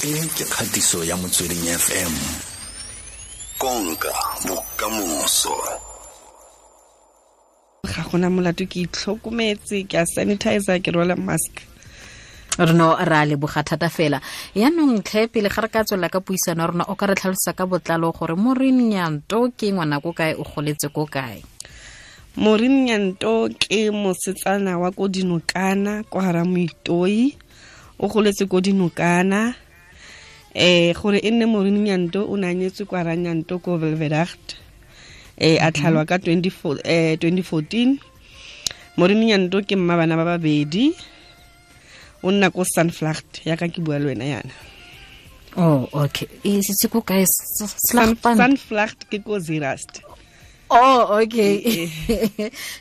E ke kgatiso ya Motsweding FM. Konka bokamoso. Ga gona molato, ke itlhokometse, ke a sanitizer, ke rwala mask. Re no ra leboga thata fela. Yaanong tlhe, pele ga re ka tswelela ka puisano ya rona, o ka re tlhalosa ka botlalo gore Maureen Nyanto ke ngwana ko kae, o goletse ko kae? Maureen Nyanto ke mosetsana wa ko Dinokana, kwa hara Moitoi. O goletse ko Dinokana. Gore e nne Maureen Nyanto, o ne a nyetswe kwa Ranyanto ko Welveragt. A tlhalwa ka 2014. Maureen Nyanto ke mma bana ba babedi. O nna ko Sunflacht, yaka ke bua le wena yana. Oh, okay. E setse ko kae? Sunflacht ke ko Zeerust. Oh, okay.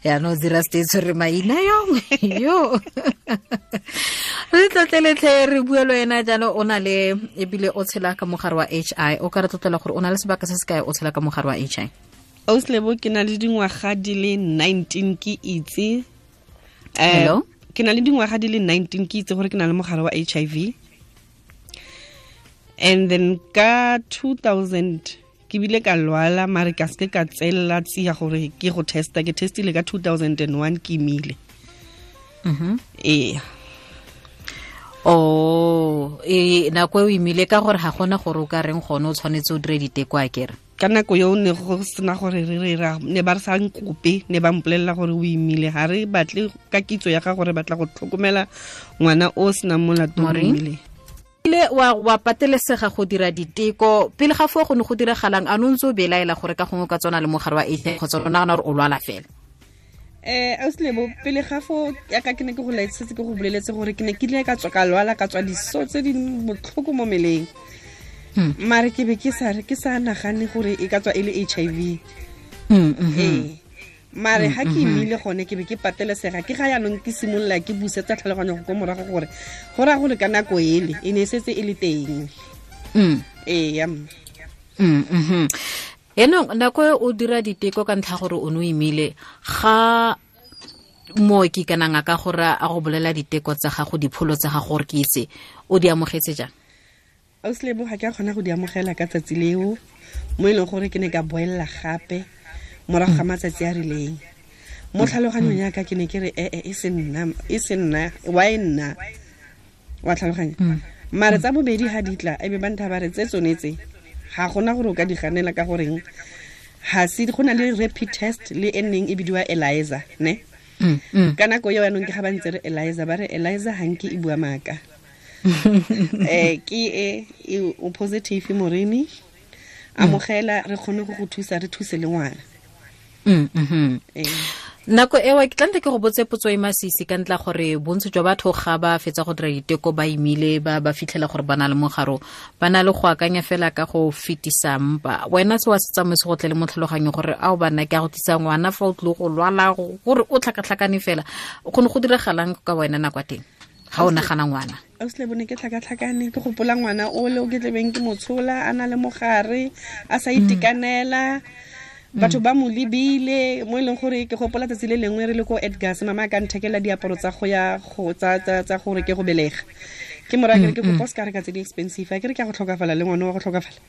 Ya no Zeerust e tshwere maina yo. Yo. Re tlotleletlhe, re bua le wena jalo, o na le ebile o tshela ka mogare wa HI. O ka re tlotlela gore o na le sebaka se se kae o tshela ka mogare wa HI? Auslebo, ke na le dingwaga di le 19 ke itse. Hello? Ke na le dingwaga di le 19 ke itse gore ke na le mogare wa HIV. And then ka 2000 ke bile ka lwala, mare ka seke ka tselela tsia gore ke go testa. Ke testile ka 2001, ke imile. Ee. Oh, e nako e o imile, ka gore ga gona gore o ka reng gone o tshwanetse o dire diteko, a kere? Ka nako eo ne go sena gore re re ra ne ba re sa nkope, ne ba mpolelela gore o imile, ga re batle ka kitso ya ga gore batla go tlhokomela ngwana o senang molato, o imile. Ile wa patelesega go dira diteko. Pele ga foo go ne go diragalang? A no ntse o belaela gore ka gongwe ka tsona le mogare wa HIV, kgotsa o nagana gore o lwala fela? Auslebo, pele ga fo yaka ke ne ke go laetsetse, ke go boleletse gore ke ne ke ile ka tswa ka lwala, ka tswa diso tse di botlhoko mo meleng, mare ke be ke sa re ke sa nagane gore e ka tswa e le HIV. Ee, mare ga ke imile gone ke be ke patelesega. Ke ga yaanong ke simolola ke busetsa tlhaloganyo go ko morago gore go raya gore ka nako ele e ne e setse e le teng. Ee, ya. Yaanong nako e o dira diteko ka ntlha gore o ne o imile, ga mooki kana ngaka gore a go bolela diteko tsa gago, dipholo tsa gago gore ke itse, o di amogetse jang? Auslebo, ga ke a kgona go di amogela ka tsatsi leo, mo e leng gore ke ne ka boelela gape morago ga matsatsi a rileng. Mo tlhaloganyong yaka ke ne ke re ee, e se nna, e se nna, wa e nna, wa tlhaloganya. Mare tsa bobedi ga di tla, ebe ba ntha ba re tse tsone tse ga gona gore o ka di ganela, ka goreng ga se go na le rapid test le e neng e bidiwa ELISA ne. Ka nako eo yanong ke ga ba ntse re ELISA, ba re ELISA ga nke e bua maaka. Ke e o positive, Morini, amogela, re kgone go go thusa, re thuse le ngwana. Nako ewa ke tlante ke go botse potso e masisi ka ntla gore bontsi jwa batho ga ba fetsa go dira diteko ba imile, ba fitlhela gore ba na le mogaro, ba na le go akanya fela ka go fetisa mpa. Wena se wa se tsamaise go tle le mo tlhaloganyong gore ao bana ke a go tlisa ngwana fa o tlile go lwala, gore o tlhakatlhakane fela, go ne go diragalang ka wena nako ya teng ga o nagana ngwana? Auslebo, ne ke tlhakatlhakane, ke gopola ngwana o le o ke tlebeng ke motshola a na le mogare, a sa itekanela, batho ba mo lebile, mo e leng gore ke gopola tsatsi le lengwe re le ko Edgars, mama a ka nthekela diaparo tsa go ya go tsa gore ke go belega. Ke mora ke re ke kopa o se ka reka tse di expensive, a ke re ke a go tlhokafala le ngwana wa go tlhokafala.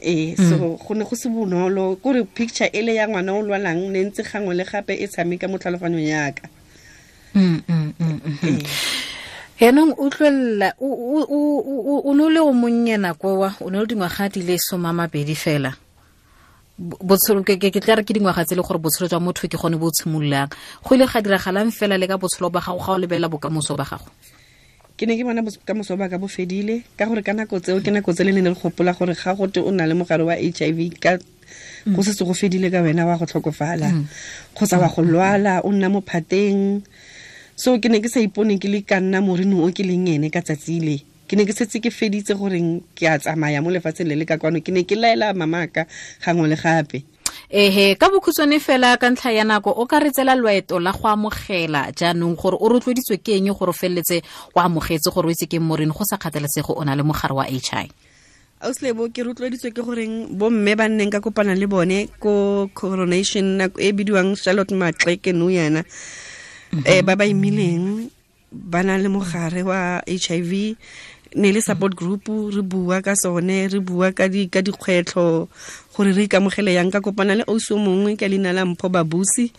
Ee, so go ne go se bonolo, kore picture ele ya ngwana o lwalang ne ntse gangwe le gape e tshameka mo tlhaloganyong yaka. Yaanong utlwelela, o ne o le o monnye nako wa o ne o le dingwaga di le 20 fela. Botshelo ke tla re ke dingwaga tse e le gore botshelo jwa motho ke gone bo tshimololang. Go ile ga diragalang fela le ka botshelo ba gago ga o lebelela bokamoso ba gago? Ke ne ke bona bokamoso ba ka bo fedile, ka gore ka nako tseo ke nako tse le ne re gopola gore ga gote o na le mogare wa HIV ka go setse go fedile ka wena, wa go tlhokofala kgotsa wa go lwala, o nna mo phateng. So ke ne ke sa ipone ke le ka nna Morini o ke leng ene ka tsatsi le. Ke ne ke setse ke feditse goreng ke a tsamaya mo lefatsheng le le ka kwano. Ke ne ke laela mamaka gangwe le gape. Ehe, ka bokhutshwane fela ka ntlha ya nako, o ka re tsela loeto la go amogela jaanong gore o rotloeditswe ke eng gore o feleletse o amogetse gore o itse ke Morini go sa kgathalesege o na le mogare wa HI? Auslebo, ke rotloeditswe ke goreng bomme ba nneng ka kopana le bone ko coronation nako e bidiwang Charlotte Maxeke nou yana, ba ba imileng ba na le mogare wa HIV. Ne le support group, re bua ka sone, re bua ka dikgwetlho gore re ikamogele yang. Ka kopana le ausi o mongwe ka leina la Mpho Babusi.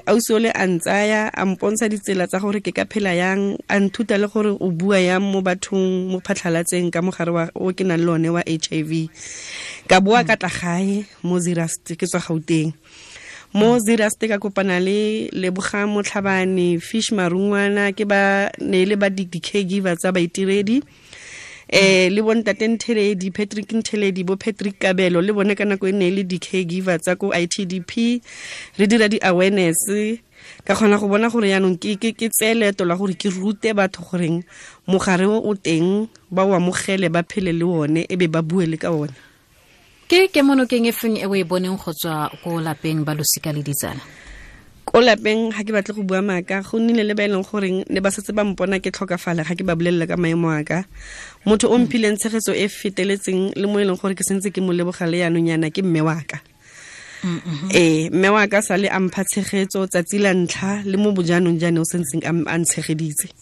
Ausi o le a ntsaya, a mpontsha ditsela tsa gore ke ka phela yang, a nthuta le gore o bua yang mo bathong, mo phatlhalatseng ka mogare wa o ke nang le one wa HIV. Ka boa ka tla gae mo Zeerust, ke tswa Gauteng. Mo Zeerust ka kopana le Lebogang Motlhabane, Fish Marungwana, ke ba ne le ba di-caregiver tsa baitiredi. Le bontate Ntheledi, Patrick Ntheledi, bo Patrick Kabelo, le bone ka nako e ne le di-caregiver tsa ko ITDP. Re dira di-awareness, ka kgona go bona gore yaanong ke tseye leeto la gore ke rute batho goreng mogare o o teng, ba o amogele, ba phele le one, e be ba bue le ka one. Ke kemonokeng e feng e o e boneng go tswa ko lapeng ba losika le ditsala? Ko lapeng ga ke batle go bua maaka, go nnile le ba e leng goreng ne ba setse ba mpona ke tlhokafala ga ke ba bolelela ka maemo a ka. Motho o mphileng tshegetso e feteletseng le mo e leng gore ke sentse ke mo leboga le yaanong yana ke mme wa ka. Mme wa ka sale a mpha tshegetso tsatsi la ntlha le mo bojanong jane o sentseng a ntshegeditse.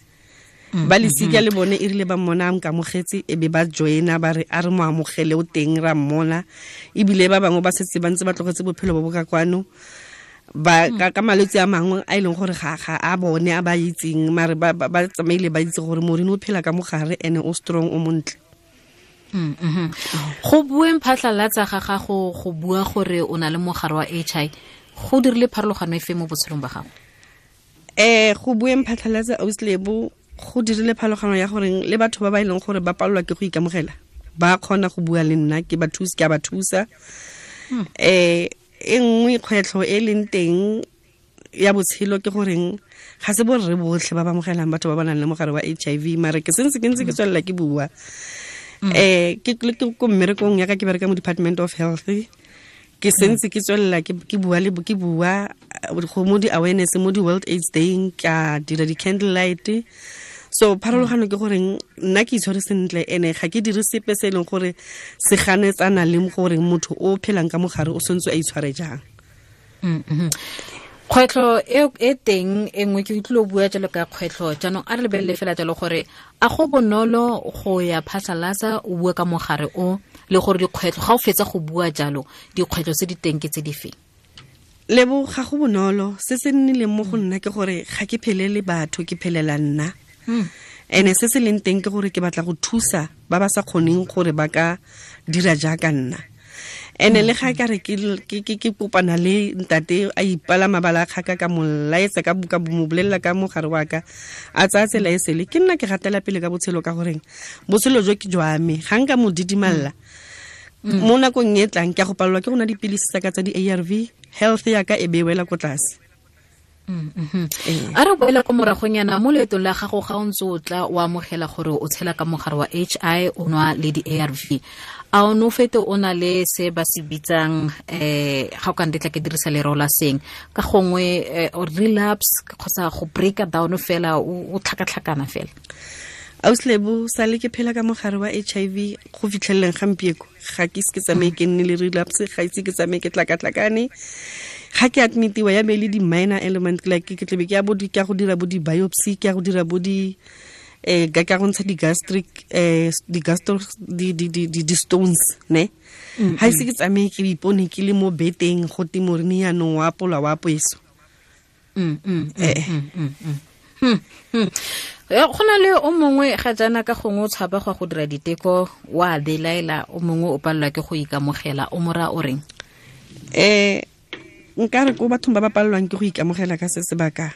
Ba lesika le bone e rile ba mmona a nkamogetse, e be ba joina ba re a re mo amogele o teng ra mmona. Ebile ba bangwe ba setse ba ntse ba tlogetse bophelo bo bo ka kwano, ba ka malwetse a mangwe a e leng gore ga a bone a ba itseng, mare ba tsamaile ba itse gore Maureen o phela ka mogare ene o strong, o montle. Go bueng phatlhalatsa ga gago go bua gore o na le mogare wa HIV, go dirile pharologano efe mo botshelong ba gago? Go bueng phatlhalatsa auslebo go dirile pharologano ya gore le batho ba ba e leng gore ba palelwa ke go ikamogela ba kgona go bua le nna, ke ba thusa, ke a ba thusa. E nngwe kgwetlho e leng teng ya botshelo ke goreng ga se borre botlhe ba ba amogelang batho ba ba nang le mogare wa HIV, mare ke sentse ke ntse ke tswelela ke bua. Ke ko mmerekong ya ka, ke bereka mo Department of Health, ke sentse ke tswelela ke bua le ke bua go mo di-awareness mo di-World AIDS Day, ka dira di-candle light. So pharologano ke goreng nna ke itshware sentle, ene ga ke dire sepe se e leng gore se ganetsana le gore motho o phelang ka mogare o sentse a itshware jang. Kgwetlho e teng e nngwe ke utlwile o bua jalo ka kgwetlho, jaanong a re lebelele fela jalo gore a go bonolo go ya phatlhalatsa o bua ka mogare o, le gore dikgwetlho ga o fetsa go bua jalo dikgwetlho tse di teng ke tse di feng? Lebo, ga go bonolo. Se se nnileng mo go nna ke gore ga ke phelele batho, ke phelela nna. Ene se se leng teng ke gore ke batla go thusa ba ba sa kgoneng gore ba ka dira jaaka nna. Ene le ga ka re ke kopana le ntate a ipala mabala a kgaka, ka mo laetsa ka buka mo bolelela ka mogare wa ka, a tsaya tsela e sele, ke nna ke gatela pele ka botshelo ka goreng botshelo jo ke jwa me, ga nka mo didimalla mo nakong e tlang ke a go palelwa ke go nwa dipilisi tsa ka tsa di-ARV, health ya ka e be wela ko tlase. A re boela ko moragonyana mo leetong la gago ga o ntse o tla o amogela gore o tshela ka mogare wa HI, o nwa le di-ARV, a o ne o fete o na le se ba se bitsang ga o ka ndetla ke dirisa lereo la seng ka gongwe relapse kgotsa go breaka down fela, o tlhakatlhakana fela? Auslebo, sale ke phela ka mogare wa HIV go fitlheleleng gampieko, ga ke ise ke tsamaye ke nne le relapse, ga ise ke tsamaye ke tlakatlakane. Ga ke admitiwa ya be le di-minor element, like ke tlebe ke ya bo ke ya go dira bo di-biopsy, ke ya go dira bo di ka go ntsha di-gastric di-gastro di-stones ne. Ga ise ke tsamaye ke ipone ke le mo beteng go te Maureen yaanong wa apolwa wa apoeso. Go na le o mongwe ga jaana ka gongwe o tshaba go go dira diteko, wa belaela, o mongwe o palelwa ke go ikamogela, o mora o reng? Nka re ko bathong ba ba palelwang ke go ikamogela ka se sebaka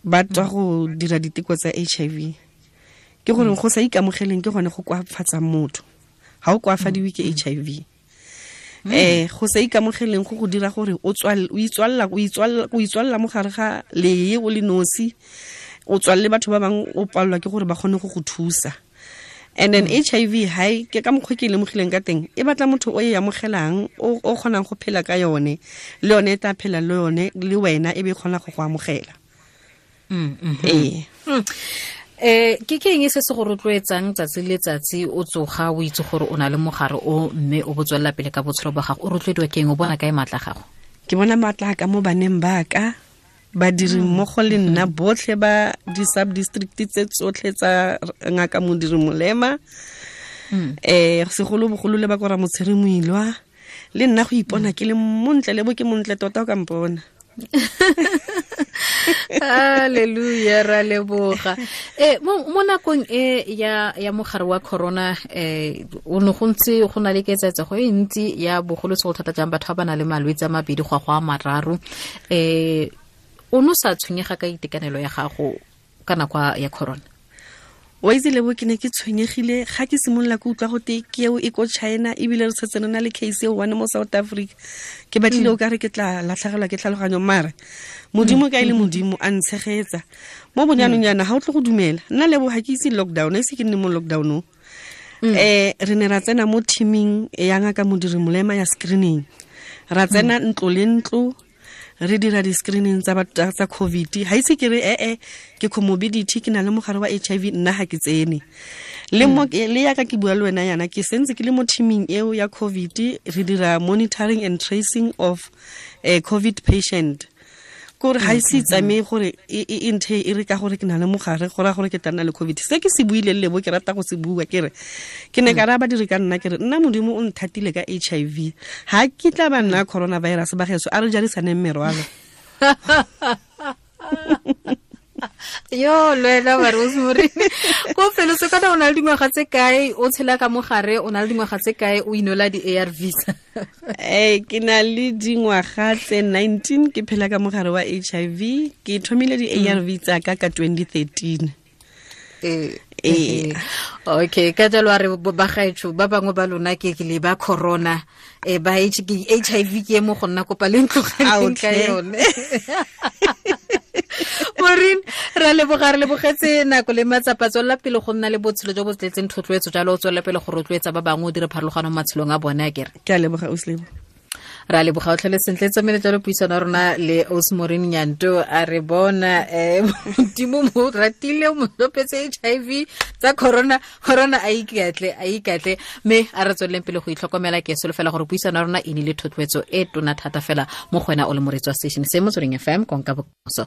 ba tswa go dira diteko tsa HIV, ke gore go sa ikamogeleng ke gone go koafatsang motho. Ga o koafadiwe ke HIV. Go sa ikamogeleng go go dira gore o itswalla mo gare ga lee o le nosi, o tswalle batho ba bangwe, o palelwa ke gore ba kgone go go thusa. And then HIV hai ke ka mokgwa ke lemogileng ka teng, e batla motho o e amogelang, o kgonang go phela ka yone, le yone e tla phela le yone le wena e be kgona go go amogela. Ke ke eng se se go rotloetsang tsatsi le tsatsi o tsoga o itse gore o na le mogare o, mme o botswella pele ka botshelo ba gago? O rotloediwa ke eng? O bona kae maatla gago? Ke bona maatla ka mo baneng ba ka, Badiri mmogo le nna botlhe ba di-sub-district tse tsotlhe tsa Ngaka Modiri Molema, segolobogolo le ba ko Ramotshiri Moilwa, le nna go ipona ke le montle, le bo ke montle tota o ka mpona. Hallelujah, ra leboga. Mo nakong e ya mogare wa corona, o ne go ntse go na le ketsetsego e ntsi ya bogolosegolo thata jang batho ba ba nang le malwetse a mabedi go a mararo. O no sa tshwenyega ka itekanelo ya gago ka nako ya corona? Wa itse lebo, ke ne ke tshwenyegile ga ke simolola ke utlwa gote ke eo e ko China, ebile re tshetse re na le case eo one mo South Africa. Ke batlile o ka re ke tla latlhegelwa ke tlhaloganyo, mare Modimo ka e le Modimo a ntshegetsa. Mo bonyanong yana ga o tle go dumela, nna lebo ga ke itse lockdown, a ise ke nne mo lockdown-ong. Re ne ra tsena mo teaming ya Ngaka Modiri Molema ya screening, ra tsena ntlo le ntlo re dira di-screening tsa batho tsa COVID. Ha ise ke re ke comorbidity, ke na le mogare wa HIV, nna ga ke tsene. Le mo le yaka ke bua le wena yana, ke sentse ke le mo teaming eo ya COVID, re dira monitoring and tracing of a COVID patient. Kore ha ise tsamaye gore e nthe e re ka gore ke na le mogare, go ra gore ke tla nna le COVID. Se ke se buileng lebo ke rata go se bua, ke re ke ne ka raya badiri ka nna, ke re nna Modimo o nthatile ka HIV, ha ke tla ba nna coronavirus ba geso, a re jarisaneng merwalo. Yo lwena ba Rosemary, ko felo se kana o na le dingwaga tse kae o tshela ka mogare, o na le dingwaga tse kae o inola di-ARVs? Ke na le dingwaga tse 19 ke phela ka mogare wa HIV. Ke thomile di-ARV tsa ka ka 2013. Okay, ka jalo a re ba gaetsho ba bangwe ba lona ke le ba corona, ba HIV ke mo go nna kopa le ntlogeleng ka yone. Maureen, ra leboga, re lebogetse nako le matsapa. Tswelela pele go nna le botshelo jo bo tletseng thotloetso jalo, o tswelela pele go rotloetsa ba bangwe, o dire pharologano mo matshelong a bone, a kere. Ke a leboga, Ausi Lebo. Ra leboga, o tlhole sentle. Tsamaile jalo puisano ya rona le Ausi Maureen Nyanto. A re bona Modimo mo ratile, mo tlopetse HIV tsa corona, corona a ikatle, mme a re tsweleleng pele go itlhokomela. Ke solofela gore puisano ya rona e nile thotloetso e tona thata fela mo go wena o le moreetsi wa station se Motsweding FM, konka bokamoso.